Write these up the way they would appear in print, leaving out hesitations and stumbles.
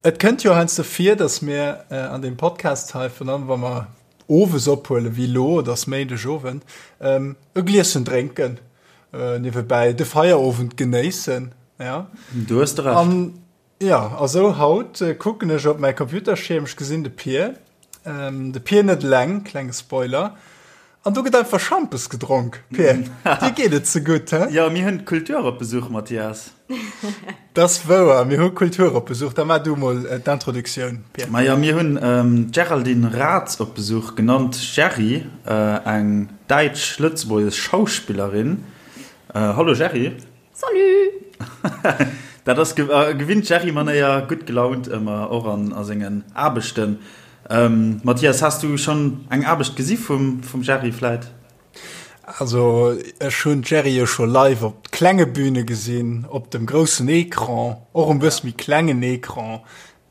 Et kënnt jo heiansdo vir, dass mir an deem Podcast hei, virun allem wa mer owes ophuelen, wéi elo, et ass Méindegowend, e Glieschen drénken, niewebäi de Feierowend genéissen, ja. Du hues de Recht. An, jo, a sou haut kucken ech op mäi Computerschierm, ech gesinn de Pir, de Pir net eleng, klenge Spoiler, An do gëtt einfach Schampes gedronk. Pir, dir geet et ze gutt, he? Jo, mir hunn d'Kultur op Besuch, Mathias. Dat ass wouer, mir hu Kultur op Besuch. Da maach du mol d'Introduktioun, Pir. Majo, mir hunn d'Géraldine Raths op Besuch, genannt Gerry, eng däitsch-lëtzebuergesch Schauspillerin. Hallo Gerry. Salut! Dat ass gewinnt Gerry-Manéier, gutt gelaunt ëmmer, och an a sengen Aarbechten. Mathias, has du schonn eng Aarbecht gesi vum Gerry vläit? Also ech hunn d'Gerry jo scho live op klenge Büne gesinn, op dem groussen Ecran, och um bësse méi klengen Ecran.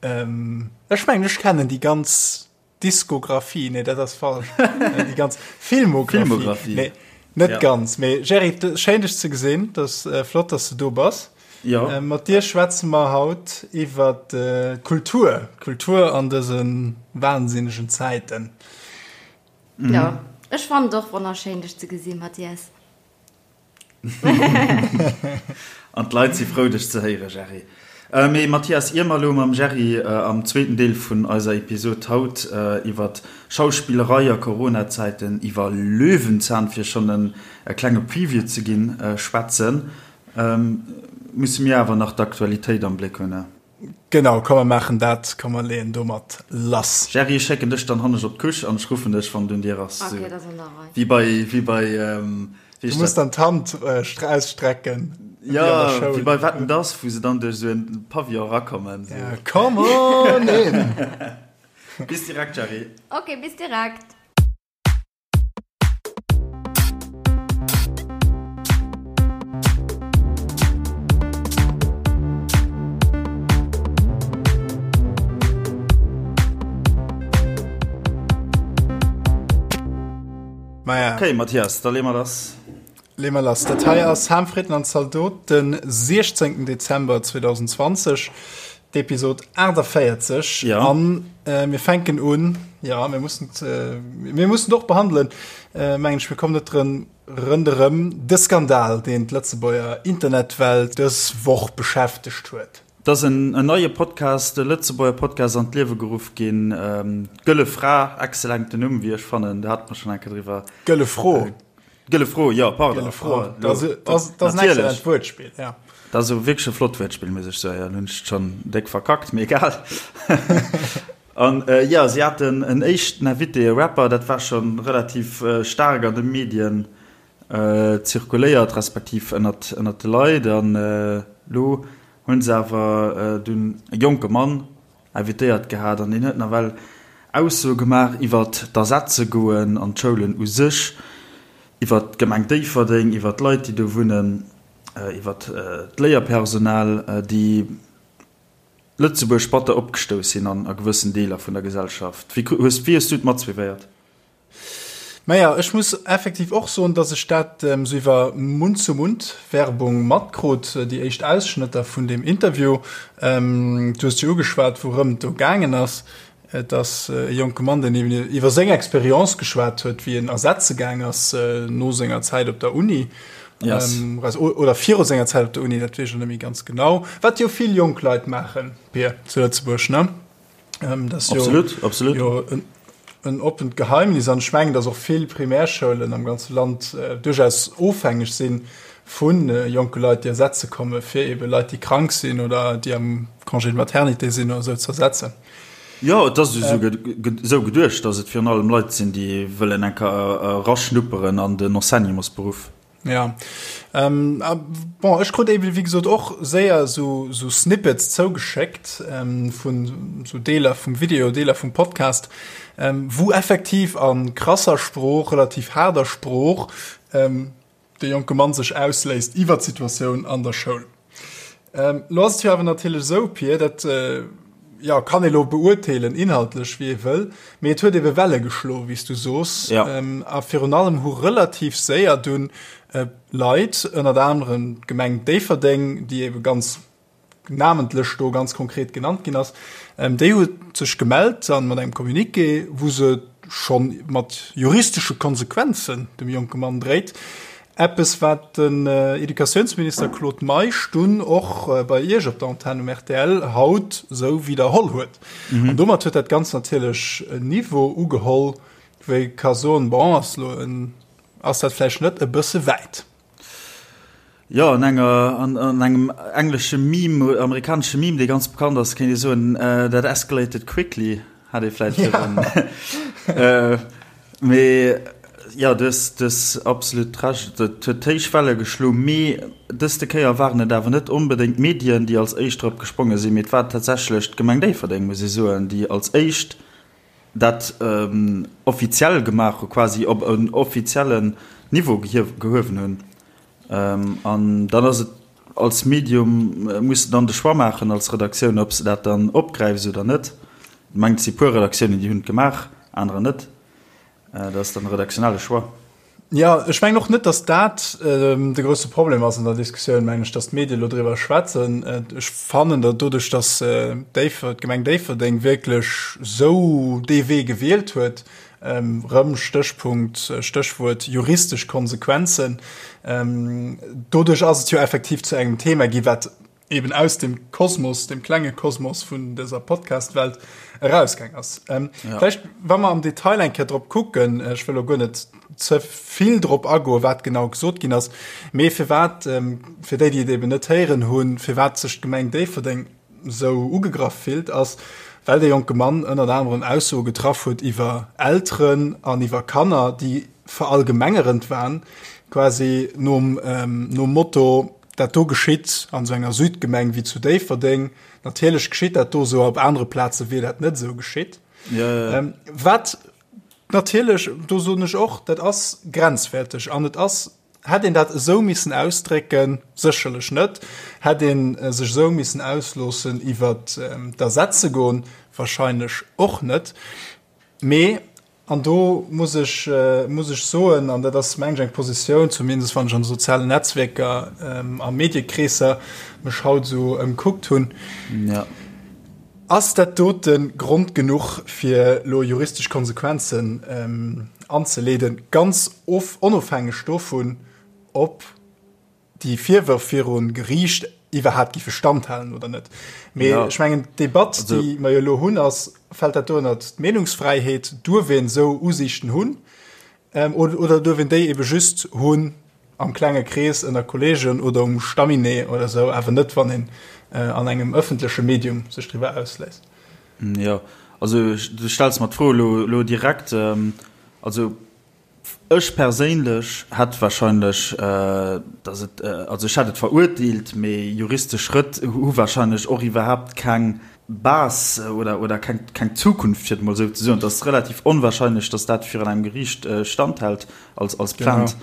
Ech mengen ech kennen déi ganz Diskografie, nee dat ass falsch. Déi ganz Filmografie. Filmografie. Nee, net ja. ganz. Mee Gerry, schéin dech ze gesinn, dat äh, flott, dass du do bass. Ja. Äh, mat dir schwätze mer haut iwwer äh, Kultur, Kultur an dëse wahnsinnegen Zäiten. Mhm. Ja, ech fand och wonnerschéin dech ze gesinn, Mathias. An d'Leit si frou dech ze héieren, Gerry. Mee Mathias, ier mer elo mam Gerry am zweeten Deel vun eiser Episod haut iwwer Schauspillerei a Corona-Zäiten, iwwer Löwenzahn, fir schonn e klenge Preview ze ginn, schwätzen, musse mir awer nach d'Aktualitéit am Bléck hunn. Genau, komm mer maachen dat, komm mer leeën domat lass. Gerry, ech schécken dech dann hannescht op d'Couche an ech ruffen dech, wann et un dir ass. Ok, dat ass an der Rei. Wéi bei, wéi bei, wéi Du muss dann d'Hand ausstrecken, wéi an der Schoul. Jo, wéi bei Wetten, dass, wou se dann duerch esou en Pavillon erakommen. Ja, come on in! Bis direkt, Gerry. Ok, bis direkt. Maja. Okay, Matthias, da lee mer lass. Lee mer lass. Dat hei ass Ham, Fritten an Zaldot, den 16. Dezember 2020, d'Episod 48. Ja. An äh, mir fänken un, ja, mir mussen, äh, mir mussen doch behandelen, äh, mengen ech, mir kommen net drën rënderëm, de Skandal, deen d'Lëtzebuerger Internetwelt dës Woch beschäftegt huet. Et ass en neie Podcast, e Lëtzebuerger Podcast an d'Liewe geruff ginn, D'Gëlle Fra, excellenten Numm, wéi ech fannen, do hate mer schonn eng Kéier driwwer. Gëlle Fro. Gëlle Fro, jo, pardon. Gëlle Fro, dat ass en excellent Wuertspill, ja. Dat ass wierklech e flott Wuertspill, muss ech soen. Jo, elo hunn ech et schonn déck verkackt, mee egal. An jo, si haten en éischten Invité, e Rapper, dat war scho relativ staark an de Medien zirkuléiert, respektiv ënnert de Leit. An elo hunn se awer dunn e jonke Mann invitéiert gehat an deen huet nawell Aussoe gemaach iwwert d'Ersetzegoen an d'Schoulen u sech, iwwert d'Gemeng Déifferdeng, iwwert d'Leit, déi do wunnen, iwwert d'Léierpersonal, déi Lëtzebuerg batter opgestouss sinn an a gewëssen Deeler vun der Gesellschaft. Wéi hues du et matsuivéiert? Maja, ech muss effektiv och soen, dass ech dat esou iwwer Mund-zu-Mund-Werbung matkrut, déi éischt Ausschnëtter vun deem Interview. Du hues jo ugeschwat, wourëm et do gaangen ass. Et ass e jonke Mann, deen eben iwwer seng Experience geschwat huet, wéi en ersetze gaang ass no senger Zäit op der Uni. Yes. Oder viru senger Zäit op der Uni, dat weess ech elo net méi ganz genau. Wat jo vill jonk Leit maachen, Pir, zu Lëtzebuerg, ne? Ähm, das absolut, jo, absolut. Jo, en, en oppent Geheimnis an ech mengen, dass och vill Primärschoulen am ganze Land äh, duerchaus ofhängeg sinn vun äh, jonke Leit, déi ersetze komme fir ebe Leit, déi krank sinn oder déi am Congé de maternité sinn oder sou ze ersetzen. Jo, et ass esou äh, geduecht, dass et virun allem Leit sinn, déi wëllen eng Kéier eraschnupperen an den Enseignementsberuff. Ja. Ähm, bon, ech krut eben, wéi gesot, och séier sou, sou Snippets zougeschéckt ähm, vun sou Deeler vum Video, Deeler vum Podcast, ähm, wou effektiv a krasser Sprooch, relativ haarder Sprooch, ähm, de jonke Mann sech ausléisst iwwer d'Situatioun an der Schoul. Ähm, lo ass et jo awer natierlech esou, Pir, dat äh, ja, kann ee lo beurteelen, inhaltlech, wéi ee wëll, mee et huet ebe Welle geschlo, wéi s du soos. Ja. Ähm, a virun allem hu relativ séier dunn äh, Leit, ënnert anerem d'Gemeng Déifferdeng, déi ebe ganz. namentlech do ganz konkret genannt ginn ass, déi huet sech gemellt an mat engem Communiqué, wou se scho mat juristesche Konsequenzen dem jonke Mann dréit. Eppes, wat den Educatiounsminister Claude Meisch dunn och bei Iech op der Antenn um rtl haut esou widderholl huet. An domat huet dat Ganzt natierlech en Niveau ugeholl, wou ee ka soen, bon, ass elo en, ass dat vläicht net e bësse wäit? Jo, an enger, an, an engem englesche Meme, amerikanesche Meme, dee ganz bekannt ass, kéint ee soen, that escalated quickly, hat ee vläicht virdrun. Ja. Mee jo, du hues, du hues absolut Recht, et huet héich Welle geschloen. Mee dëste Kéier waren et awer net onbedéngt d'Medien, déi als éischt drop gespronge sinn, mee et war tatsächlech d'Gemeng Déifferdeng, muss ee soen, déi als éischt dat offiziell gemaach hu, quasi op en offiziellen Niveau gehuewen hunn. An dann ass et als Medium, muss de dann de Choix maachen als Redaktioun, ob s de dat dann opgräifs oder net. Ech mengen, et si puer Redaktiounen, déi hunn et gemaach, anerer net. Dat ass dann e redaktionelle Choix. Jo, ech mengen och net, datt dat de grousse Problem ass an der Diskussioun, mengen ech, datt d'Medie elo driwwer schwätzen. Ech fannen, datt doduerch, datt Déiffer, d'Gemeng Déifferdeng wierklech esou dee Wee gewielt huet, erëm Stéchpunkt, Stéchwuert juristesch Konsequenzen, doduerch ass et jo effektiv zu engem Thema gi wat eben aus dem Kosmos, dem klenge Kosmos vun dëser Podcast-Welt erausgaang ass. Ähm, ja. Vielleicht, wa mer am Detail eng Kéier drop kucken, äh, ech wëll lo guer net ze vill drop agoen, wat genau gesot ginn ass, mee firwat, ähm, fir déi, déi et eben net héieren hunn, firwat sech d'Gemeng Déifferdeng sou ugegraff fillt, ass, well dee jonke Mann ënnert anerem Aussoe getraff huet iwwer Elteren an iwwer Kanner, déi verallgemengerend waren, quasi nom, ähm, nom Motto, Dat do geschitt an esou enger Südgemeng wéi zu Déifferdeng. Natierlech geschitt dat do esou, op anere Plaze wier dat net esou geschitt. Ja, ja. Ähm, wat natierlech, do soen ech och, dat ass grenzwäerteg an et ass, hätt een dat esou missen ausdrécken? Sécherlech net. Hätt een äh, sech esou missen ausloossen iwwer ähm, d'Ersetze goen? Wahrscheinlech och net. Mee An do muss ech, muss ech soen, an dat ass, meng ech, eng Positioun, zumindest wann ech an de sozialen Netzwierker a Mediekreesser mech haut esou ëmkuckt hunn, ass dat dote Grond genuch, fir elo juristesch Konsequenzen anzeleeden, ganz onofhängeg dovun, ob déi Virwërf viru Geriicht iwwerhaapt géife standhalen oder net. Mee ja. ech mengen d'Debatt, déi mer jo elo hunn, ass, fält dat do ënnert d'Meenungsfräiheet? Duerf een esou Usiichten hunn ähm, oder, oder duerf een déi ebe just hunn am klenge Krees ënner Kolleegen oder um Staminee oder esou, awer net, wann een äh, an engem ëffentleche Medium sech driwwer ausléisst? Ja, also du stells mer d'Fro elo, elo direkt. Ähm, also Ech perséinlech hätt wahrscheinlech, dass et, also ech hätt et verurteelt, mee juristesch Schrëtt hu wahrscheinlech och iwwerhaapt keng Base oder, oder keng, keng Zukunft, fir et emol esou ze soen. Et ass relativ onwahrscheinlech, dass dat virun engem Geriicht standhält als, als Plainte.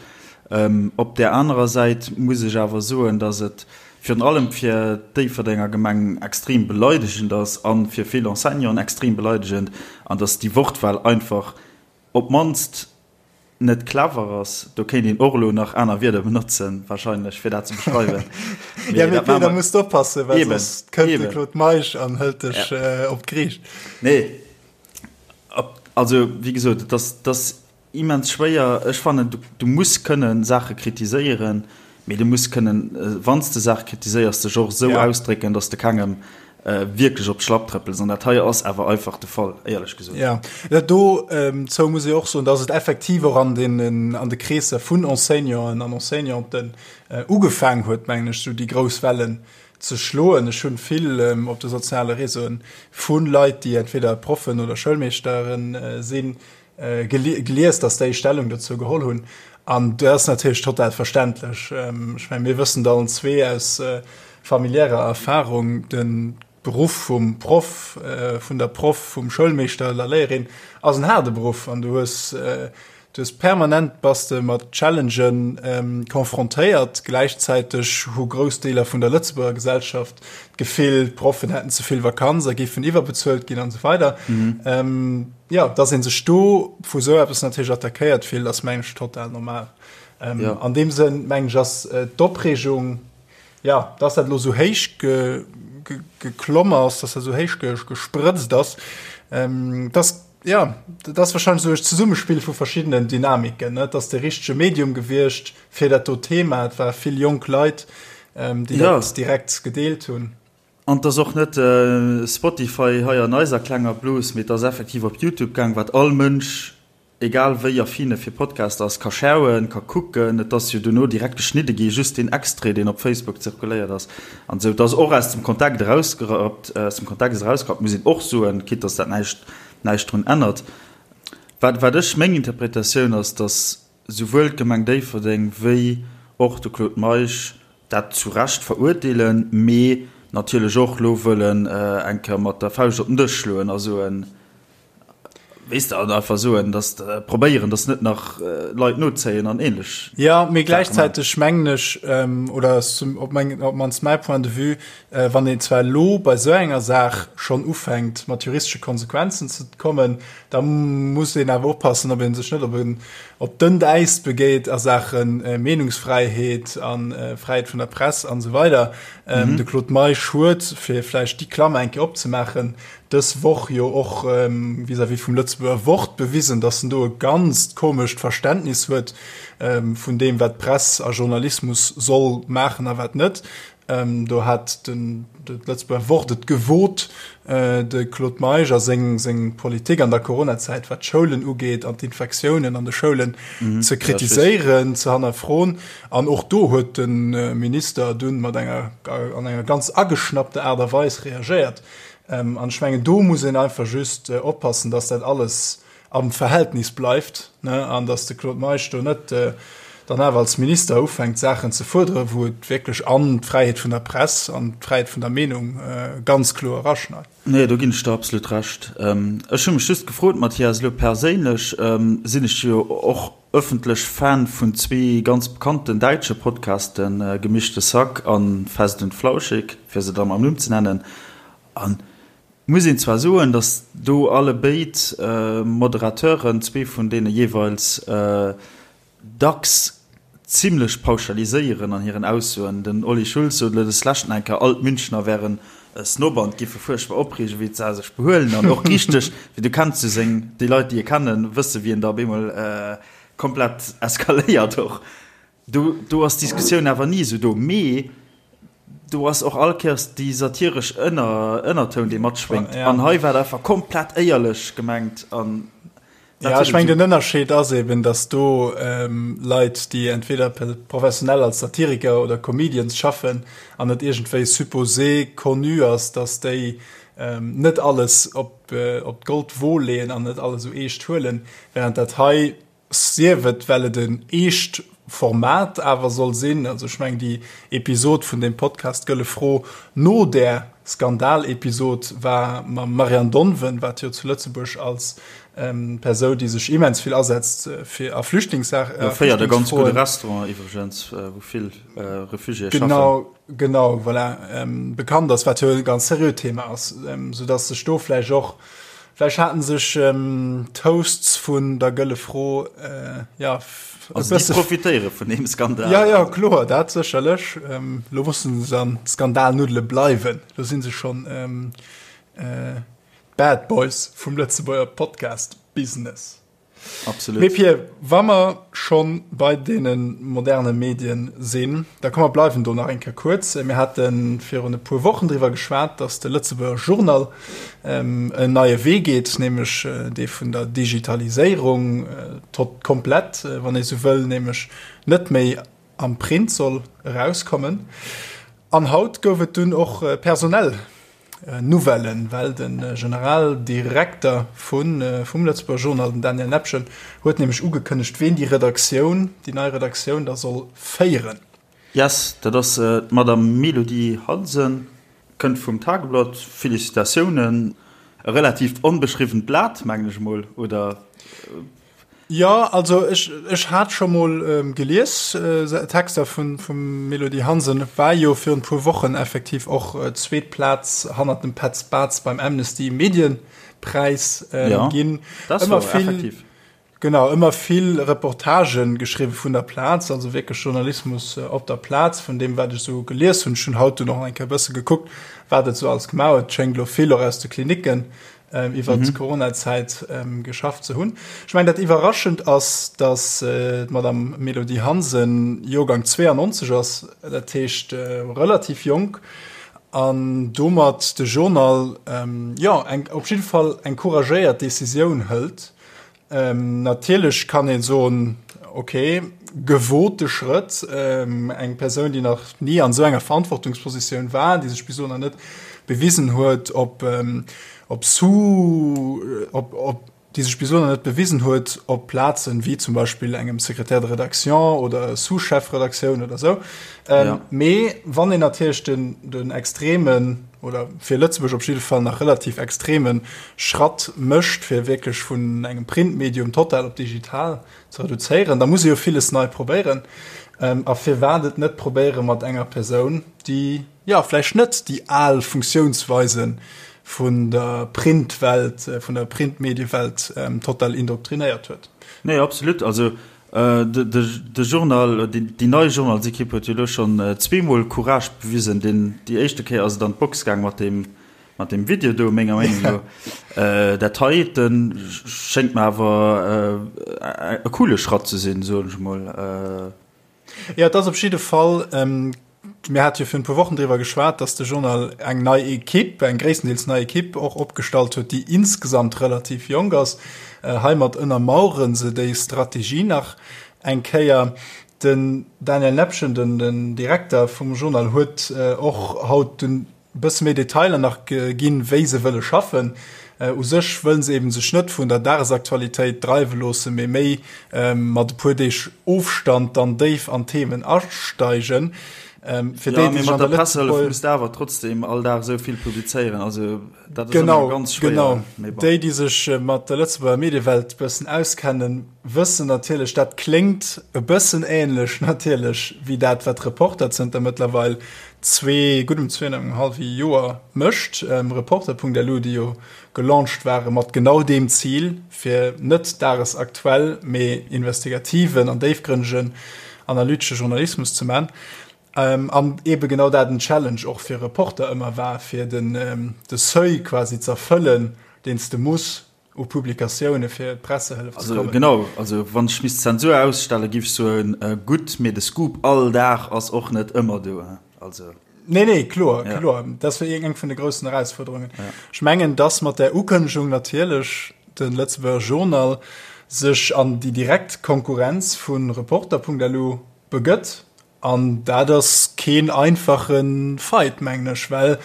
Op där anerer Säit muss ech awer soen, dass et virun allem fir d'Déifferdenger Gemeng extrem beleidegend ass a fir vill Enseignanten extrem beleidegend an dass déi Wortwahl einfach Op d'mannst net clever ass. Do kéint een och elo nach aner Wierder benotzen wahrscheinlech, fir dat ze beschreiwen. Ja, mee Peter, muss de oppassen, well soss kënnt de Claude Meisch an hëlt dech op d'Geriicht. Nee, also wéi gesot, et ass, et ass immens schwéier. Ech fannen, du, du muss kënnen Saache kritiséieren, mee du muss kënnen, wann s de Saache kritiséiers, dech och esou ausdrécken, datt s de kengem wierklech op d'Schlapp trëppels. An dat hei ass awer einfach de Fall, éierlech gesot. Ja, dat do zou muss ee och soen, dass et effektiv och an deenen, an de Kreesser vun Enseignanten an Enseignanten ugefaang huet, mengen ech, esou déi grouss Wellen ze schloen. Ech hunn vill op de soziale Réseauen vu Leit, déi entweder Proffen oder Schoulmeeschteren sinn, gelies, dass déi Stellung dozou geholl hunn. An dat ass natierlech total verständlech. Ech mengen, mir wëssen et allen zwee aus familiärer Erfahrung, de Beruff vum Proff, vun der Proff, vum Schoulmeeschter oder Léierin ass en haarde Beruff an du hues, du hues permanent bass de mat Challengen confrontéiert. Gläichzäiteg hu grouss Deeler vun der Lëtzebuerger Gesellschaft d'Gefill, d'Proffen hätten ze vill Vakanz a géifen iwwerbezuelt ginn an esou weider. Jo, dass ee sech do vu sou eppes natierlech attackéiert fillt, ass mengen ech total normal. Ähm, An deem Sënn mengen ech ass äh, d'Opreegung, ja, dass dat elo sou héich ge, geklomm ass, dass dat esou héich gesprëtzt ass. Dass, jo, dat ass warscheinlech esou e Zesummespill vu verschiddenen Dynamiken, ne? Et ass de richtege Medium gewiescht fir dat do Thema. Et ware vill jonk Leit, déi dat direkt gedeelt hunn. An 't ass och net Spotify hei an eiser klenger Blos, mee 't ass effektiv op Youtube gaang, wat all Mënsch, egal wéi affin e fir Podcast ass, ka schauen, ka kucken. Et ass jo dono direkt geschnidde gi, just deen Extrait, deen op Facebook zirkuléiert ass an esou. 't ass och aus dem Kontakt erausgerappt, aus dem Kontext erausgerappt, muss een och soen, quitte dass dat näischt, näischt drun ännert. Wat, wat ech, meng Interpretatioun ass, dass souwuel d'Gemeng Déifferdeng wéi och de Claude Meisch dat zu Recht verurteelen, mee natierlech och elo wëllen eng Kéier mat der Fauscht op den Dësch schloen a soen, weess de, an einfach soen, datt probéieren, datt net nach Leit nozéien an ähnlech. Jo, mee gläichzäiteg mengen ech, oder op meng, op d'mannst mäi Point de vue, wann een zwar elo bei esou enger Saach schonn ufänkt mat juristesche Konsequenzen ze kommen, Da muss een awer oppassen, ob ee sech net op en op dënnt Äis begéit a Saache Meenungsfräiheet a Fräiheet vun der Press an esou weider. De Claude Meisch huet, fir vläicht déi Klammer eng Kéier opzemaachen, dës Woch jo och vis-à-vis vum Lëtzebuerger Wort bewisen, datt en do e ganzt komescht Verständnis huet vun deem, wat Press a Journalismus soll maachen a wat net. Do hat den d'Lëtzebuerger Wort et gewot, de Claude Meisch a seng seng Politik an der Coronazäit, wat d'Schoulen ugeet an d'Infektiounen an de Schoulen, ze kritiséieren, ze hannerfroen. An och do huet de Minister dunn mat enger an enger ganz ageschnappter Aart a Weis reagéiert. An ech mengen, do muss een einfach just oppassen, datt dat alles am Verhältnis bleift, ne, an datt de Claude Meisch do net dann awer als Minister ufänkt Saachen ze fuerderen, wou et wierklech an d'Fräiheet vun der Press an d'Fräiheet vun der Meenung ganz kloer eraschneit. Nee, do ginn ech der absolut Recht. Ech hu mech just gefrot, Mathias, elo perséinlech sinn ech jo och ëffentlech Fan vun zwee ganz bekannten däitsche Podcasten, Gemischte Sack a Fest und Flauschig, fir se da mam Numm ze nennen. An Muss een zwar soen, datt do alle béid Moderateuren, zwee vun deene jeeweils, dacks zimlech pauschaliséieren an hiren Aussoen. Den Olli Schulz sot elo des leschten eng Kéier, all d'Münchner wären Snob an giffe fuerchtbar opreegen, wéi se sech behuelen an och richteg, wéi du kenns jo seng, déi Leit, déi e kennen, wësse wéi en da op eemol komplett eskaléiert och. Do, do ass d'Diskussioun awer ni esou do. Mee do ass och all Kéiers déi satiresch Ënner, Ënnertoun, dee matschwéngt. Ja. An hei war et einfach komplett éierlech gemengt. An dat Ja, ech meng, den Ënnerscheed ass eben, dass do ähm, Leit, déi entweder professionell als Satiriker oder Comedians schaffen an et iergendwéi supposé connu ass, dass déi ähm, net alles op, äh, op d'Goldwo leeën an net alles esou eescht huelen, während dat hei Sief et well et en eescht Format awer soll sinn, also ech mengen déi Episod vun deem Podcast Gëlle Fro no där Skandal-Episod war mam Marianne Donven, wat jo zu Lëtzebuerg als Persou, déi sech immens vill asetzt fir a Flüchtlingssaach, a Féiert e ganz gudde Restaurant iwwregens, wou vill Refugiéë schaffen. Genau, genau, voilà, bekannt ass, wat jo e ganz seriöt Thema ass, soudass sech do vläicht och Vläicht haten sech d'Hosts vun der Gëlle Fro ja e Also déi profitéiere vun deem Skandal. Ja, ja, kloer, dat sécherlech. Lo mussen se an Skandalnuddele bleiwen. Lo si se schonn d'Bad Boys vum Lëtzebuerger Podcast-Business. Absolut. Mee Pir, wa mer scho bei deene moderne Medien sinn, da komm mer bleiwen do nach eng Kéier kuerz. Mir hate virun e puer Wochen driwwer geschwat, datt de Lëtzebuerger Journal en neie Wee geet, nämlech dee vun der Digitaliséierung, tot komplett, wann ee sou wëll, nämlech net méi am Print soll erauskommen. An haut gouf et dunn och personell Nouvellen, well de Generaldirekter vum Lëtzebuerger Journal, den Daniel Nepgen, huet nämlech ugekënnegt, ween déi Redaktioun, déi nei Redaktioun da soll féieren. Yes, dat ass d'Madame Mélodie Hansen, kënnt vum Tageblatt. Félicitatiounen! E relativt onbeschriwwent Blat, mengen ech emol, oder? Jo, also ech, ech hat scho mol gelies, Texter vun, vum Melody Hansen, war jo virun puer Wochen effektiv och zweet Plaz hannert dem Petz Bartz beim Amnesty Medienpräis ginn. Ja, dat war effektiv. Genau, ëmmer vill Reportagen geschriwwen vun der Plaz, also wierklech Journalismus op der Plaz, vun deem wat ech esou gelies hunn. Ech hunn haut dunn och nach eng Kéier e bësse gekuckt, wat et esou alles gemaach huet. Et schéngt elo vill och aus de Klinicken iwwert d'Coronazäit geschafft ze hunn. Ech mengen, dat Iwwerraschend ass, datt d'Madame Mélodie Hansen Joergang 92 ass, dat heescht relativ jonk, an domat de Journal, jo, eng, op jidde Fall eng couragéiert Decisioun hëlt, Natierlech kann ee soen, ok, gewote Schrëtt, eng Persoun, déi nach ni an esou enger Verantwortungspositioun war, déi sech bis elo nach net bewisen huet, op op Sous, op op déi sech bis elo nach net bewisen huet op Plazen wéi zum Beispill engem Secrétaire de rédaction oder Sous-Chef-Redaktioun oder esou. Mee wann een natierlech den den extremen oder fir Lëtzebuerg op jidde Fall nach relativ extreme Schratt mécht, fir wierklech vun engem Printmedium total op digital ze reduzéieren, da muss ee jo villes nei probéieren. A firwat et net probéiere mat enger Persoun, déi, jo, vläicht net déi al Funktiounsweise vun der Printwelt, vun der Printmediewelt total indoktrinéiert huet. Nee, absolut. Also De Journal, déi nei Journalsekipp huet jo elo schonn zweemol Courage bewisen. Deen, déi éischte Kéier ass et an d'Box gaang mat deem, mat deem Video do, menger Meenung no. Dat heite schéngt mer awer e coole Schratt ze sinn, soen ech emol. Jo, et ass op jidde Fall Mir hate jo virun e puer Wochen driwwer geschwat, dass de Journal eng nei Ekipp, eng gréisstendeels nei Ekipp och opgestallt huet, déi insgesamt relativ jonk ass. Heimat ënnermauere se déi Strategie nach eng Kéier. Den Daniel Nepgen, den Direkter vum Journal, huet och haut dunn e bësse méi Detailer nach ginn, wéi se wëlle schaffen. U sech wëllen se eben sech net vun der Dagesaktualitéit dreiwe loossen, mee méi mat e puer Deeg Ofstand dann déif an d'Themen asteigen. Fir déi, déi sech an der Pressehëllef muss de awer trotzdem all Dag esou vill publizéieren, also dat ass ëmmer ganz schwéier. Genau, déi, déi sech mat der Lëtzebuerger Mediewelt e bëssen auskennen, wëssen natierlech, dat kléngt e bëssen ähnlech natierlech wéi dat, wat Reporter zënter mëttlerweil zwee, guddem zwee an engem hallwe Joer mécht. Reporter.lu, déi jo gelaunched ware mat genau deem Zil, fir net dagesaktuell, mee investigativen an déifgrënnegen analytesche Journalismus ze man. An eebe genau dat en Challenge och fir Reporter ëmmer war, fir den de Seuil quasi z'erfëllen, deen s de muss u Publikatioune fir d'Pressehëllef ze kommen. Genau, also wann ech misst Zensur ausstellen, giff ech soen, gutt, mee de Scoop all Dag ass och net ëmmer do. Also. Nee, nee, kloer, ja. kloer. Dat war eng vun de groussen Erausfuerderungen. Ja. Ech mengen, dass mat der Ukënnegung natierlech de Lëtzebuerger Journal sech an déi direkt Konkurrenz vu Reporter.lu begëtt. An dat ass keen einfache Fight, mengen ech, well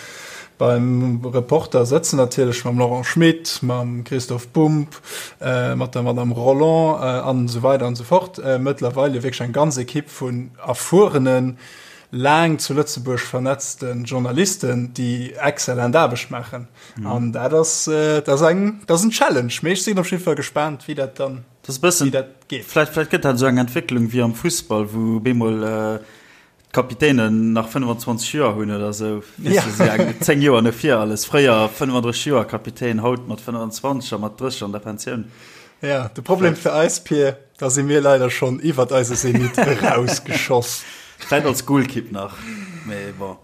beim Reporter sëtzen natierlech mam Laurent Schmit, mam Christoph Bumb, mat der Madame Rolland an esou weider an esou fort mëttlerweile wierklech eng ganz Ekipp vun erfuerenen, laang zu Lëtzebuerg vernetzte Journalisten, déi exzellent Aarbecht maachen. An dat ass, dat ass eng, dat ass en Challenge. Mee ech sinn op jidde Fall gespaant, wéi dat dann. Dat ass e bëssen, vläicht, vläicht gëtt dat esou eng Entwécklung wéi am Fussball, wou bemol d'Kapitänen nach 25 Joer hunn oder esou, weess de, esou eng 10 Joer no vir alles. Fréier 35 Joer Kapitän, haut mat 25 a mat 30 an der Pensioun. Ja, de Problem fir eis, Pir, da si mir leider schonn iwwert eise Zenit erausgeschoss. Vläicht als Golkipp nach, mee bon.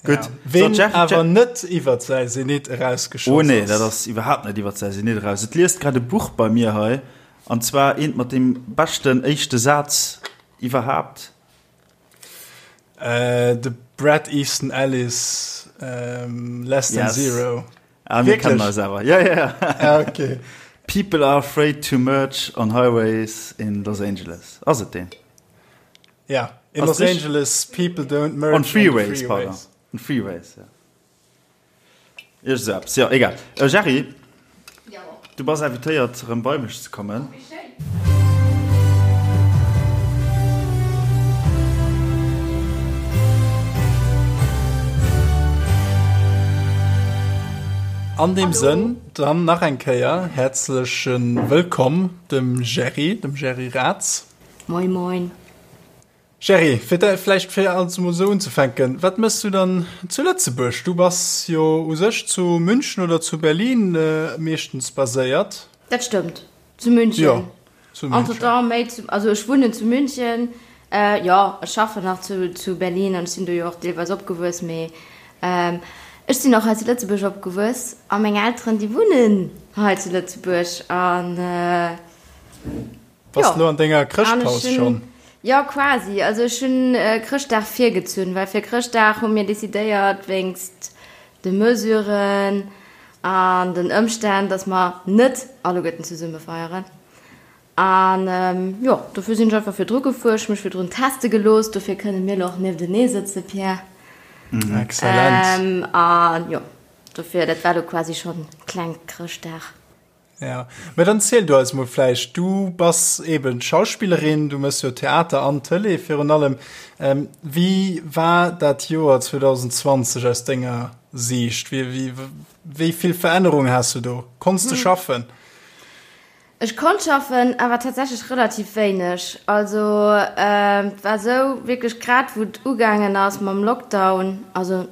Gutt. Ja. Ween so, awer net iwwer säi Zenit erausgeschoss Oh nee, dat ass iwwerhaapt net iwwer säi Zenit eraus. Et liest grad e Buch bei mir hei, an zwar eent mat deem beschten éischte Saz iwwerhaapt. Äh, de Bret Easton Ellis, ähm, Less Than yes. Zero. Ah, mir kennen eis awer. Ja, ja, ja. Ah, okay. People are afraid to merge on highways in Los Angeles. Ass et deen? Ja, in Los Angeles people don't merge on freeways, on freeways. Pardon. On freeways, ja. Iergend sou eppes, jo, egal. Äh, Jerry, ja. du bass invitéiert, erëm bei mech ze kommen. Oh, An deem Sënn dann nach eng Kéier häerzleche Wëllkomm dem Jerry, dem Jerry Raths. Moin moin. Jerry, fir da vläicht fir alles emol esou unzefänken, wat méchs du dann zu Lëtzebuerg? Du bass jo u sech zu München oder zu Berlin meeschtens baséiert. Dat stëmmt, zu München. Jo, Zu München. Entretemps méi zu, also ech wunnen zu München, jo, ech schaffen nach zu, zu Berlin an ech sinn do jo och deelweis opgewuess, mee ech sinn och hei zu Lëtzebuerg opgewuess a meng Elteren, déi wunnen hei zu Lëtzebuerg an Bass de lo an denger Chrëschtpaus schonn? Jo, quasi. Also ech hunn Chrëschtdag virgezunn, well fir Chrëschtdag hu mir decidéiert, wéinst de Mesuren an den Ëmstänn, dass mer net alleguerten zesumme feieren. An jo, dofir sinn ech einfach virdru gefuer. Ech hu mech virdrun teste gelooss, dofir kënne mir elo och nieftenee sëtzen, Pierre. Excellent. An jo, dofir, dat war elo quasi schonn kleng Chrëschtdag. Ja, mä dann ziel du eis mol vläicht, du bass eben Schauspillerin, du mëss jo Theater an Tëlee virun allem. Ähm, wéi war dat Joer 2020 aus denger Siicht? Wéi, wéi, wéi vill Verännerung has du do? Konns du schaffen? Ech konnt schaffen, awer tatsächlech relativ wéineg. Also et war esou, wierklech grad wou et ugaangen ass mam Lockdown, also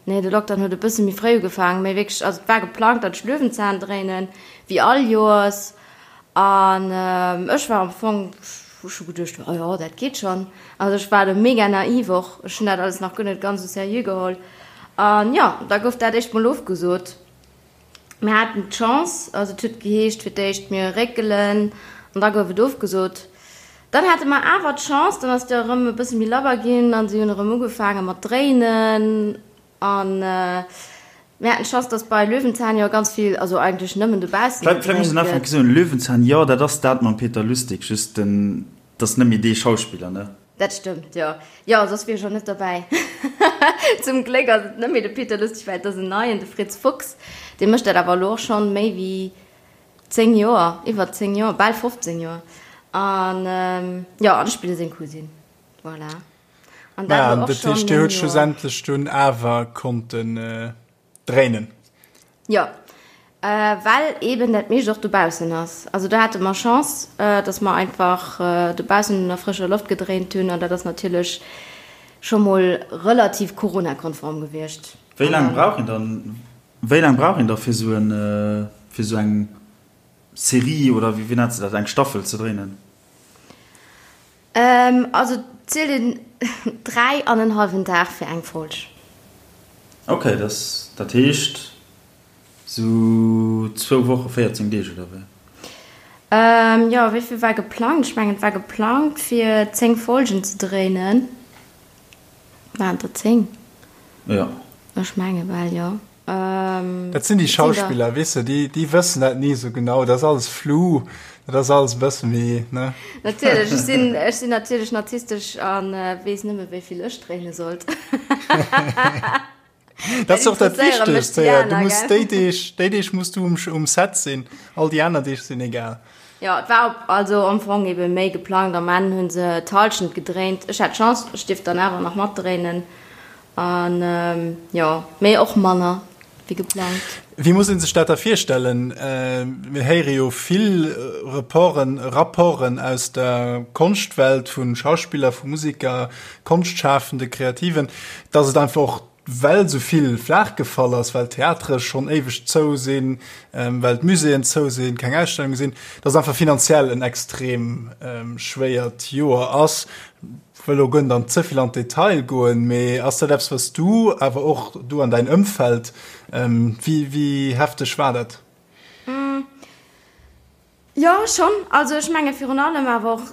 Nee, de Lockdown huet e bësse méi fréi ugefaangen, mee wierklech, also et war geplangt, datt ech Löwenzahn dréinen, wéi all Joers. An ech war am Fong, ech hu geduecht, oh jo, dat geet schonn. Also ech war do mega naiv och, ech hunn dat alles nach guer net ganz esou seriö geholl. An jo, da gouf dat éischt mol ofgesot. Mir haten d'Chance, also et huet geheescht fir d'éischt, mir réckelen an da gouf et ofgesot. Dann hate mer awer d'Chance, dann ass et jo erëm e bësse méi labber ginn a si hunn erëm ugefaange mat dréinen. A mir haten d'Chance, datt bei Löwenzahn jo ganz vill, also eigentlech nëmmen dobaussen Vläicht muss een gedréint gëtt. Ufänken soen, Löwenzahn, jo, dat ass dat mam Peter Lustig, just den, dat ass net méi dee Schauspiller, ne? Dat stëmmt, jo. Jo, soss wier ech och net derbäi. Zum Gléck ass et net méi de Peter Lustig, well et ass en neien, de Fritz Fuchs. Dee mécht dat awer elo och schonn méi wéi 10 Joer, iwwer 10 Joer, bal 15 Joer. An jo, an ech spille seng Cousine. Voilà. An dat elo och schonn 9 Joer. Dat heescht, Dir hutt schlussendlech dunn awer konnten dréinen? Jo, well eben dat meescht och dobaussen ass. Also do hate mer Chance, dass mer einfach dobaussen un der frëscher Loft gedréint hunn an dat ass natierlech scho mol relativ coronakonform gewiescht. Wéi laang brauch een dann, wéi laang brauch een da fir esou en, fir esou eng Serie oder wéi nennt se dat, eng Staffel ze dréinen? Also et zielt een 3 an en hallwen Dag fir eng Folg. Ok, dat heescht sou zwou Woche, 14 Deeg oder wéi? Jo, wéi vill war geplangt? Ech mengen et war geplangt fir 10 Folgen ze dréinen. Waren et der 10? Jo. Ech menge bal jo. Dat sinn déi Schauspiller, weess de, déi, déi wëssen dat ni esou genau. Dat ass alles flou, dat ass alles e bësse méi, ne? Natierlech, ech sinn, ech sinn natierlech narzisstesch a weess nëmme wéi vill ech dréine sollt. Dat ass och dat Wichtegst, héier. Du muss déi Deeg, déi Deeg muss du um, um Set sinn, all déi aner Deeg sinn egal. Jo, et war op, also am Fong ebe méi geplangt. Am Enn hu se d'Hallschent gedréint. Ech hat Chance, ech dierft dann awer nach matdréinen. An jo, mee och manner wéi geplangt. Wéi muss een sech dat da virstellen? Mir héiere jo vill Reporten, Rapporten aus der Konschtwelt, vu Schauspiller, vu Musiker, Konschtschafende, Kreativen, dass et einfach och, well esou vill flaach gefall ass, well d'Theatere schonn éiweg zou sinn, well d'Muséeën zou sinn, keng Ausstellunge sinn, dass et einfach finanziell en extrem schwéiert Joer ass. Wëll elo guer net an ze vill an d'Detail goen, mee ass dat eppes, wat s du, awer och du an däin Ëmfeld, wéi, wéi hefteg war dat? Jo, schonn. Also ech menge virun allem awer och,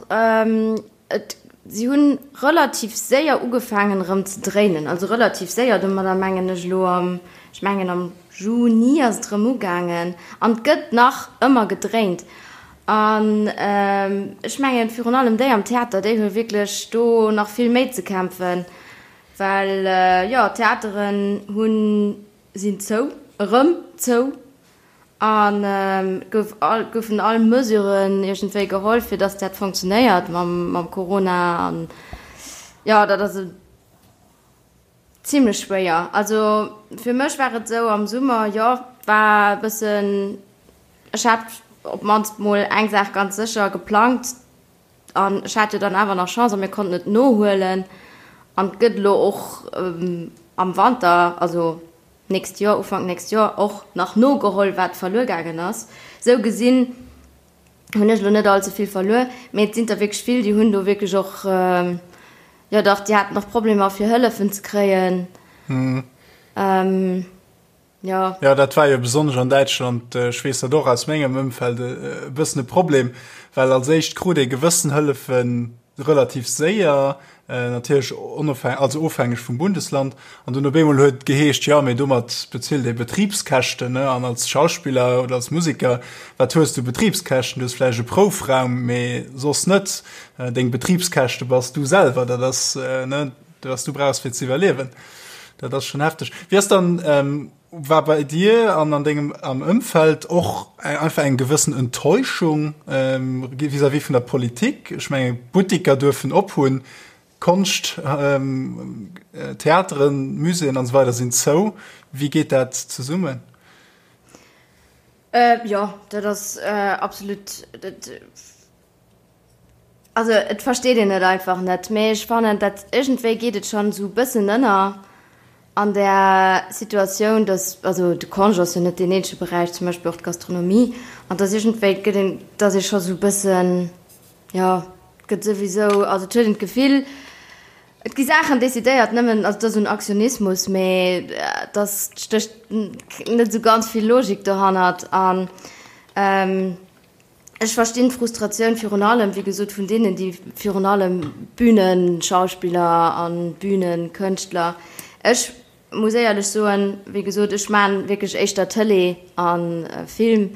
et, si hunn relativ séier ugefaangen erëm ze dréinen. Also relativ séier, domadder mengen ech elo am, ech mengen am Juni ass et erëm ugaangen an et gëtt nach ëmmer gedréint. An ech mengen, virun allem déi am Theater, déi hu wierklech do nach vill méi ze kämpfen, well, jo, d'Theateren hunn, sinn zou, erëm zou an et gouf all, goufen all Mesuren iergendwéi geholl, fir datt dat funktionéiert mam, mam Corona an, jo, dat ass e. Zimlech schwéier. Also fir mech war et esou am Summer, jo, war e bëssen, ech hat op d'mannst mol eng Saach ganz sécher geplangt an ech hat jo dann awer nach Chance a mir konnten et nohuelen an et gëtt elo och am Wanter, also d'nächst Joer, Ufank nächst Joer och nach nogeholl wat verluer gaangen ass. Esou gesinn. Hunn ech elo net all ze vill verluer, mee et sinn der wierklech vill, déi hunn do wierklech och, jo dach, déi haten och Problemer fir Hëllefen ze kréien. Jo. Jo, dat war jo besonnesch an Däitschland, ech weess dat och aus mengem Ëmfeld, e bëssen e Problem, well als éischt krut ee gewëssen Hëllefen relativ séier, natierlech onofhäng-, also ofhängeg vum Bundesland, an dunn op eemol huet et geheescht, jo, mee domat bezilt ee Betribskäschten, ne, an als Schauspiller oder als Museker, wat hues du Betribskäschten? Du hues vläicht e Proufraum, mee soss net. Deng Betribskäschte bass du selwer, dat ass, ne, wat du brauchs fir ze iwwerliewen. Dat ass schonn hefteg. Wéi ass dann War bei dir an an dengem am Ëmfeld och einfach eng gewëssen Enttäuschung vis-à-vis vun der Politik? Ech menge Buttiker duerfen op hunn, Konscht, Theateren, Muséeën an esou weider sinn zou. Wéi geet dat zesummen? Jo, dat ass absolut. Also et versteet een et einfach net, mee ech fannen dat iergendwéi geet et schonn esou e bëssen ënner an där Situatioun, dass, also de Congé ass jo net deen eenzege Beräich, zum Beispill och d'Gastronomie, an dass iergendwéi gëtt een, dass ee scho sou e bëssen, jo, et gëtt souwisou, also et huet een d'Gefill, et gi Saachen decidéiert nëmmen, also et ass esou en Aktionismus, mee dass stécht net esou ganz vill Logik dohannert an. Ech verstinn d'Frustratioun virun allem, wéi gesot, vun deenen, déi virun allem Bühnenschauspiller a Bühnenkënschtler. Ech muss éierlech soen, wéi gesot, ech maachen wierklech éischter Tëlee a Film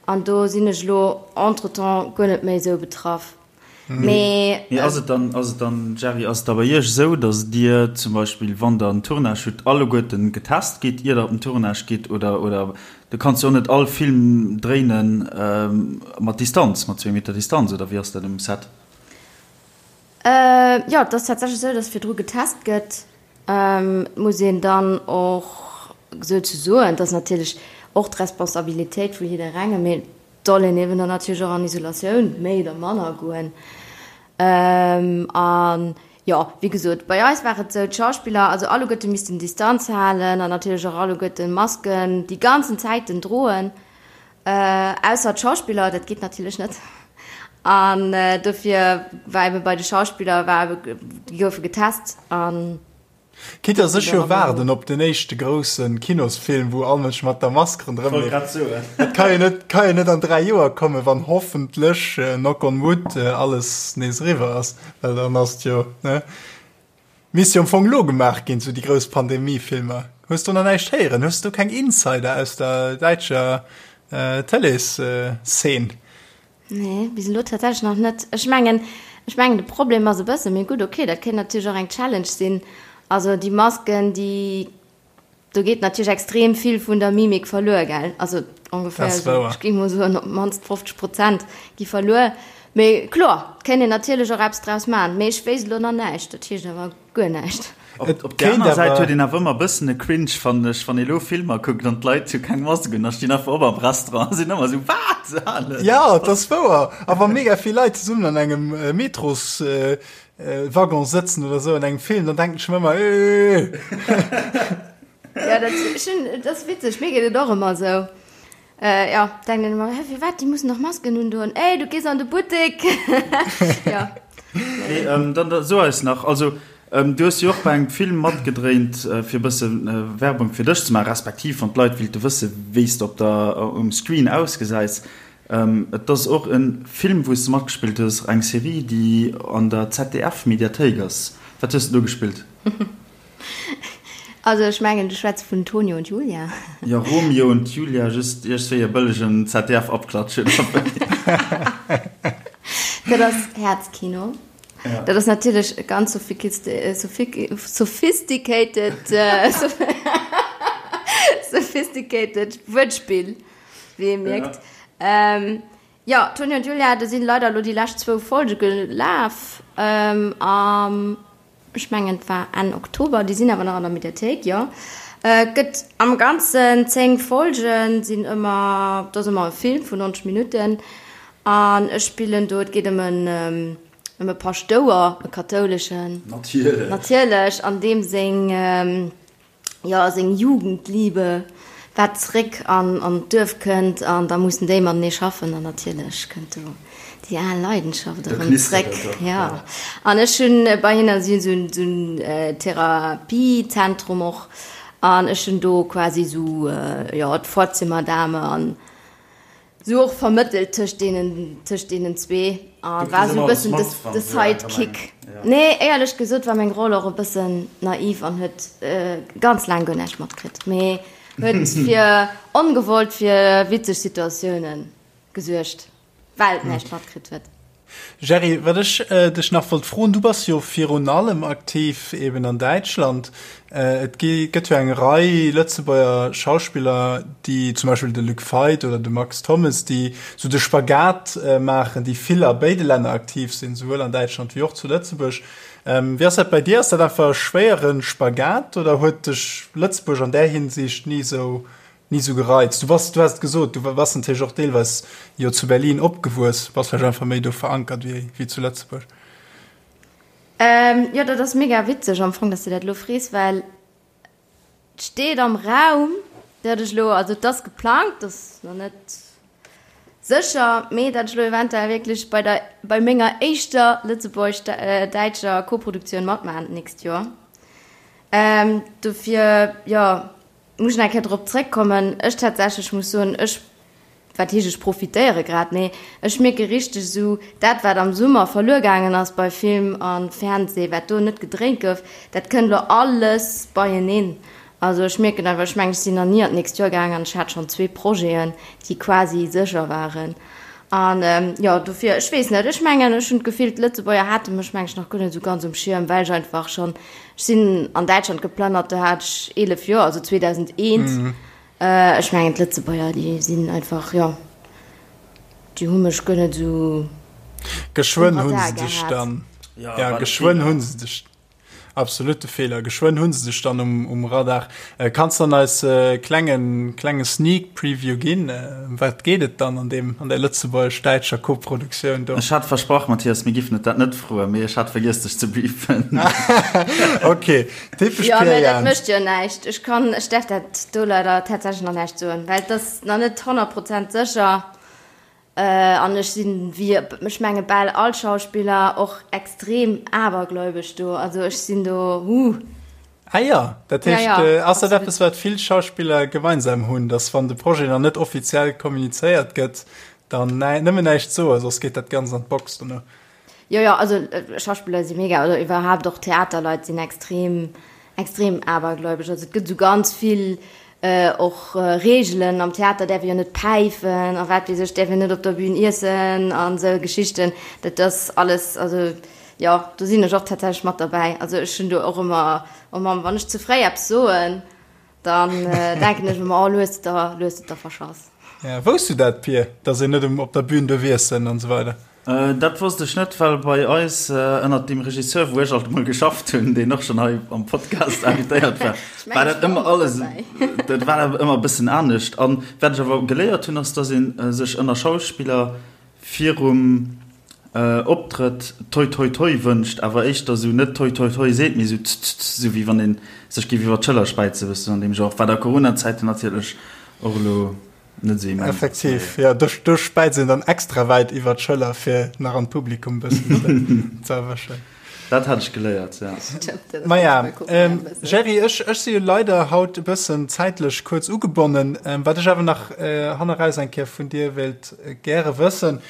an do sinn ech elo entretemps guer net méi esou betraff. Mee ass et dann, ass et dann, Jerry, ass et da bei Iech esou, datt Dir zum Beispill, wann Der en Tournage hutt, alleguerten getest gitt, ier Der op den Tournage gitt? Oder, oder du kanns jo och net all Film dréinen mat Distanz, mat zwéi Meter Distanz, oder wéi ass dat um Set? Jo, et ass tatsächlech esou, datt virdru getest gëtt. Et muss een dann och souzesoen, et ass natierlech och d'Responsabilitéit vu jidderengem, mee Soll een eben dann natierlech och an Isolatioun méi oder manner goen. An jo, wéi gesot, bei eis war et esou, d'Schauspiller, also alleguerte missten Distanz halen an natierlech och alleguerte Masken déi ganzen Zäiten droen, ausser d'Schauspiller, dat geet natierlech net. An dofir war ebe bei de Schauspiller war ebe, déi goufe getest an. Quitte dass ech jo waarden op den éischte grousse Kinosfilm, wou all Mënsch mat der Mask ronderëm leeft. Dat ka jo net, ka jo net an 3 Joer kommen, wann hoffentlech, knock on wood, alles nees eriwwer ass, well dann ass et jo, ne? Misst jo am Fong elo gemaach ginn, sou déi grouss Pandemie-Filmer. Hues do nach näischt héieren? Hues du keng Insider aus der däitscher Tëlees-Szene? Nee, bis elo tatsächlech nach net. Ech mengen, ech mengen de Problem ass e bëssen, mee gutt, okay, dat kéint natierlech och eng Challenge sinn, also déi Masken, déi, do geet natierlech extrem vill vun der Mimik verluer, gell? Also ongeféier esou, ech géing mol soen, op d'mannst 50 Prozent gi verluer. Mee kloer, et kéint een natierlech och eppes draus maachen, mee ech wéisst elo nach näischt, dat heescht awer guer näischt. Op der aner Säit huet een awer ëmmer e bëssen e Cringe, fannen ech, wann ee lo Filmer kuckt an d'Leit hu keng Mask un a stinn einfach op am Restaurant a sinn ëmmer esou, Wat? Jo, et ass wouer. A wa mega vill Leit zesummen an engem Metroswaggon sëtzen oder esou an engem Film, dann denken ech mer ëmmer, Eeeeh. Jo, dat, ech hunn, et ass witzeg, mir geet et och ëmmer esou. Jo, denken een ëmmer, Hä, firwat, déi mussen dach Masken undoen. Ey, du gees an de Buttek! Jo. Mee dann so eis nach, also du hues jo och bei engem Film matgedréint, fir e bësse Werbung fir dech ze maachen, respektiv wann d'Leit willte wësse wéi s de op der, um Screen ausgesäis. Et ass och e Film, wou s de matgespillt hues, eng Serie, déi an der ZDF-Mediathéik ass. Wat hues de do gespillt? Also ech mengen du schwätz vun Tonio und Julia. Jo, Romeo und Julia, just iergstwéi e bëllegen ZDF-Abklatsch oder wéi. Dat ass Häerzkino. Ja. Dat ass natierlech e ganz sophisticated, sophisticated Wuertspill, wéi ee mierkt. Ja. Jo, Tonio und Julia, do sinn leider elo déi lescht zwou Folge gelaf am. Ech mengen et war Enn Oktober, déi sinn awer nach an der Mediathéik, jo. Et gëtt am Ganzen 10 Folgen, sinn ëmmer, et ass ëmmer e Film vun 90 Minutten an ech spillen do, et geet ëm en, ëm e Paschtouer, e kathouleschen. Natierlech. Natierlech, an deem seng, jo, seng Jugendliebe. wat zréck an an d'Duerf kënnt an da mussen déi matenee schaffen an natierlech kënnt do déi al Leidenschaft erëm zréck. Jo, an ech hunn bei hinne, si hunn esou esou en Therapiezentrum och an ech hunn do quasi esou, jo, d'Vorzimmerdame an Sou och vermëttelt tëscht deenen, tëscht deenen zwee a war sou e bëssen de, de Sidekick. Nee, éierlech gesot war meng Roll och e bëssen naiv an huet ganz laang guer näischt matkritt, mee huet fir ongewollt fir witzeg Situatioune gesuergt, well et näischt matkritt huet. Jerry, wat ech dech nach wollt froen, du bass jo virun allem aktiv eben an Däitschland. Et gi gëtt jo eng Rei Lëtzebuerger Schauspiller, déi zum Beispill de Luc Feit oder de Max Thommes, déi sou de Spagat maachen, déi vill a béide Länner aktiv sinn, souwuel an Däitschland wéi och zu Lëtzebuerg. Wéi ass dat bei dir? Ass dat einfach e schwéiere Spagat oder huet dech Lëtzebuerg an där Hinsicht ni sou Ni sou gereizt. Du bass, du has et gesot, du bass natierlech och deelweis jo zu Berlin opgewuess, bass vläicht einfach méi do verankert wéi, wéi zu Lëtzebuerg. Ähm, jo, dat ass mega witzeg am Fong, dass de dat elo frees, well et steet am Raum, dat ech elo, also et ass geplangt, et ass nach net sécher, mee dat ech elo eventuell wierklech bei der, bei menger éischter lëtzebuergesch-däitscher Koproduktioun matmaachen d'nächst Joer. Ähm, dofir, jo. Muss ech nach eng Kéier drop zréckkommen. Ech tatsächlech muss soen, ech, wat heescht ech profitéiere grad, mee ech mierke richteg esou, dat wat am Summer verluer gaangen ass bei Film a Fernseh, wat do net gedréint gouf, dat kënnt elo alles beieneen. Also ech mierken einfach, ech mengen ech sinn nach ni an d'nächst Joer gaangen an ech hat schonn zwee Projeten, déi quasi sécher waren. An jo, dofir, ech weess net, ech mengen, ech hunn d'Gefill, d'Lëtzebuerger hate mech, meng ech, nach guer net esou ganz um Schierm, well ech einfach schonn, ech sinn an Däitschland geplënnert, do hat ech 11 Joer, also 2001. Ech mengen, d'Lëtzebuerger, déi sinn einfach, jo, déi hu mech guer net esou um Geschwënn hu se Radar dech gehat. dann, ja, geschwënn hu se dech. Absolute Feeler. Geschwënn hunn se dech dann um, um Radar. Äh, kanns dann eis äh, klengen, klenge Sneak Preview ginn? Äh, ëm wat geet et dann an deem, an der lëtzebuergesch-däitscher Koproduktioun do? Ech hat versprach, Mathias, mir giffen et dat net froen, mee ech hat vergiess dech ze briefen. Okay, typesch Jo, Pierre mä dat Jans. mécht jo näischt. Ech kann, ech däerf dat do leider tatsächlech nach näischt soen, well et ass nach net 100 Prozent sécher. An ech sinn, wéi ech menge bal all Schauspiller, och extrem abergläubesch do. Also ech sinn do, huh. Ah jo, dat Ja, heescht, ja, ass dat absolut. eppes, wat vill Schauspiller gemeinsam hunn, datt wann de Projet nach net offiziell kommunizéiert gëtt, dann nëmmen näischt soen, soss geet dat Ganzt an d'Box dono? Jo, jo, also Schauspiller si mega, oder iwwerhaapt och Theaterleit sinn extrem, extrem abergläubesch. Also et gëtt esou ganz vill och Reegelen, am Theater däerf ee jo net päifen a wat weess ech, däerf een net op der Bühn iessen an esou Geschichten. Dat ass alles, also jo, do sinn ech och tatsächlech mat derbäi. Also ech hunn do och ëmmer, oh Mamm, wann ech ze fréi eppes soen, Dann denken ech ëmmer, oh, lo hues de der, lo hues de der verschass. Ja, wousst du dat, Pir, dass een net um op der Bühn duerf iessen an esou weider? Dat wosst ech net, well bei eis ënnert deem Regisseur, wou ech alt emol geschafft hunn, deen och schonn hei am Podcast invitéiert war, war dat ëmmer alles, dat war awer ëmmer e bëssen anescht. An wat ech awer geléiert hunn, ass, dass ee sech ënner Schauspiller virum Optrëtt toi toi toi wënscht, awer éischter sou net toi toi toi seet, mee sou tst tst, sou wéi wann een sech géif iwwer d'Schëller späizen, bëssen an deem Genre, wat a Corona-Zäiten natierlech och elo net sou immens ass. Effektiv, jo, do do späizt een dann extra wäit iwwer d'Schëller, fir nach an d'Publikum bëssen ze erwëschen. Dat hat ech geléiert, ja. Maja, Gerry, ech ech si jo leider haut e bëssen zäitlech kuerz ugebonnen. Wat ech awer nach hanneraus eng Kéier vun dir wéilt gäre wëssen,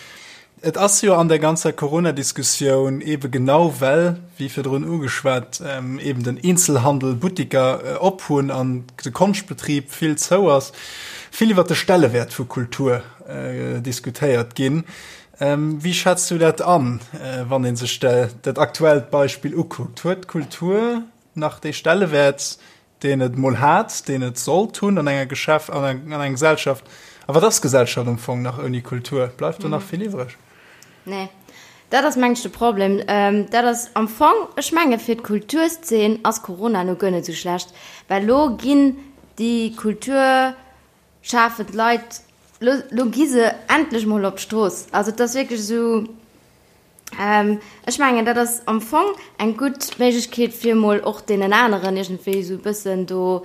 Et ass jo an der ganzer Corona-Diskussioun eebe genau well, wéi virdrun ugeschwat, eeben den Eenzelhandel, Buttiker op hunn an de Konschtbetrib vill zou ass, vill iwwert de Stellewäert vu Kultur diskutéiert ginn. Wéi schätz du dat an, wann ee sech dat aktuellt Beispill ukuckt? Huet d'Kultur nach dee Stellewäert, deen et mol hat, deen et sollt hunn an enger Geschäft, an enger Gesellschaft? A wat ass Gesellschaft am Fong nach ouni Kultur? Bleift do nach vill iwwreg? Nee, dat ass meng ech de Problem. Dat ass am Fong, ech menge fir d'Kulturszeen ass Corona elo guer net esou schlecht, well elo ginn déi kulturschafend Leit, elo, elo gi se endlech mol op d'Strooss. Also et ass wierklech esou, Ech mengen, dat ass am Fong eng gutt Méiglechkeet, fir emol och deenen aneren iergendwéi esou e bëssen do.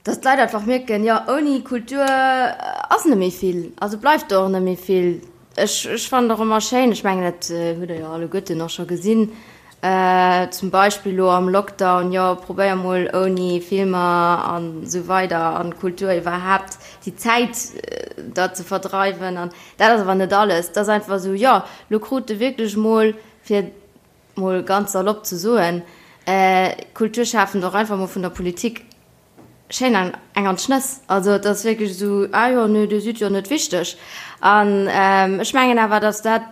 Dass d'Leit einfach mierken, jo, ouni Kultur ass net méi vill, also bleift do och net méi vill. Ech, ech fannen et och ëmmer schéin, ech mengen, dat hutt Der jo alleguerten och scho gesinn, zum Beispill elo am Lockdown, jo, probéier mol ouni Filmer an esou weider an Kultur iwwerhaapt déi Zäit da ze verdreiwen. An dat ass awer net alles. Et ass einfach esou, jo, elo krut de wierklech mol, fir mol ganz salopp ze soen, Kulturschafend och einfach mol vun der Politik schéin eng an d'Schnëss. Also et ass wierklech esou, ah jo, nö, dir sidd jo net wichteg. An ech mengen awer, datt dat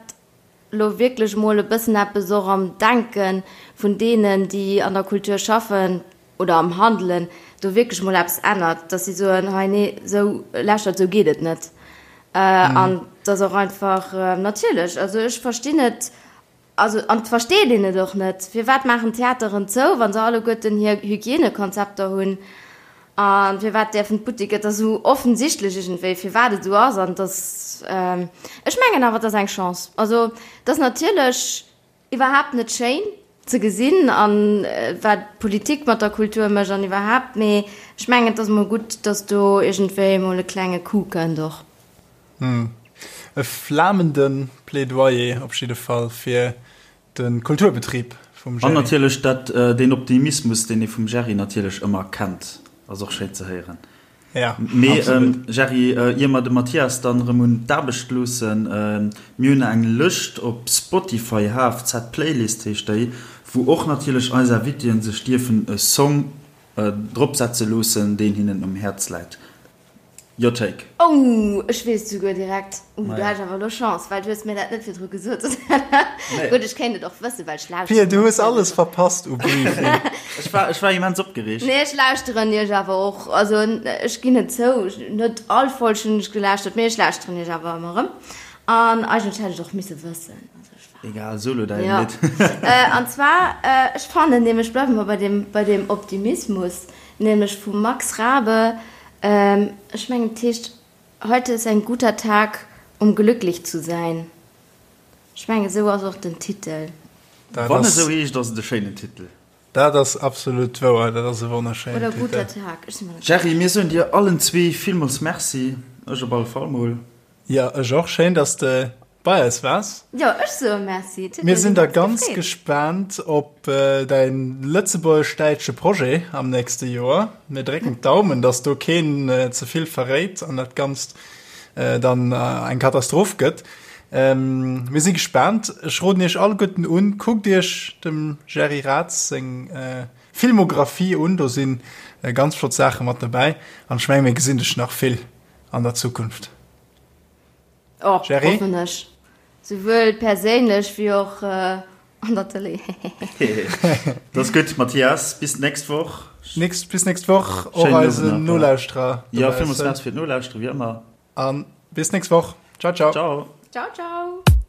elo wierklech mol e bëssen eppes och am Denke vun deenen, déi an der Kultur schaffen oder am Handelen, do wierklech mol eppes ännert, datt si soen, hei nee, esou, lauschtert, esou geet et net. An datt och einfach, natierlech, also ech verstinn et, Also, an et versteet een et och net, firwat maachen d'Theateren zou, wa se alleguerten hir Hygienekonzepter hunn? A firwat däerfen d'Buttiker, et ass esou offensichtlech iergendwéi, firwat et esou ass. An et ass, ech mengen awer, et ass eng Chance. Also, et ass natierlech iwwerhaapt net schéin ze gesinn, a wat d'Politik mat der Kultur mécht an iwwerhaapt, mee ech mengen, et ass emol gutt, datt do iergendwéi emol e klenge Coup kënnt och. E flamende Plädoyer op jidde Fall fir de Kulturbetrib vum Gerry. An natierlech dat, deen Optimismus, deen ee vum Gerry natierlech ëmmer kennt, ass och schéin ze héieren. Ja, Mee, Gerry, ier mer de Mathias dann erëm un d'Aarbecht loossen, mir hunn eng Lëscht op Spotify, HFZ Playlist heescht déi, wou och natierlech eis Invitéen sech dierfen e Song dropsetze loossen, deen hinnen um Häerz läit. Your take. Oh, ech weess et souguer direkt. Uh, do hat ech awer elo Chance, well du hues mir dat net virdru gesot. Gutt, ech kéint et och wëssen, well ech lauschteren. Pia, du hues alles verpasst u Briefing. Ech war, ech war immens opgereegt. Nee, ech lauschteren iech awer och. Also, ech ginn et zou, net all Folg hunn ech gelauschtert, mee ech lauschteren iech awer ëmmer erëm. An eigentlech hätt ech et och misse wëssen. Also, ech war. Egal, solo däin Lidd. An zwar, ech fannen nämlech, bleiwe mer bei deem, bei deem Optimismus, nämlech vum Max Rabe, Ech mengen et heescht Heute ist ein guter Tag, um glücklich zu sein. Ech mengen esou ass och den Titel. Wann esou heescht, ass et e schéinen Titel. Dat ass absolut wouer, dat ass e wonnerschéinen Titel. Oder guter Tag, ech si mer net sécher. Gerry, mir soen dir allen zwee villmools Merci, ech op alle Fall mol. Jo, ech och. Schéin, dass de bei eis waars. Jo, ech soe Merci. Et huet Mir sinn da ganz gespaant op däin lëtzebuergesch-däitsche Projet am nächste Joer. Mir drécken d'Daumen, dass do keen ze vill verréit an dat Ganzt dann eng Katastroph gëtt. Mir si gespaant. Ech roden iech alleguerten un, kuckt iech dem Gerry Raths seng Filmographie un, do si ganz flott Saache mat dobäi an ech menge mir gesinn dech nach vill an der Zukunft. Och, Jerry? hoffen ech. Souwuel perséinlech wéi och an der Tëlee. Dat ass gutt, Mathias. Bis d'nächst Woch. Nächst, bis nächst Woch. Och eisen Nolauschterer. Ja, villmools Merci fir d'Nolauschtere, wéi ëmmer. A bis nächst Woch. Ciao, ciao. Ciao. Ciao, ciao.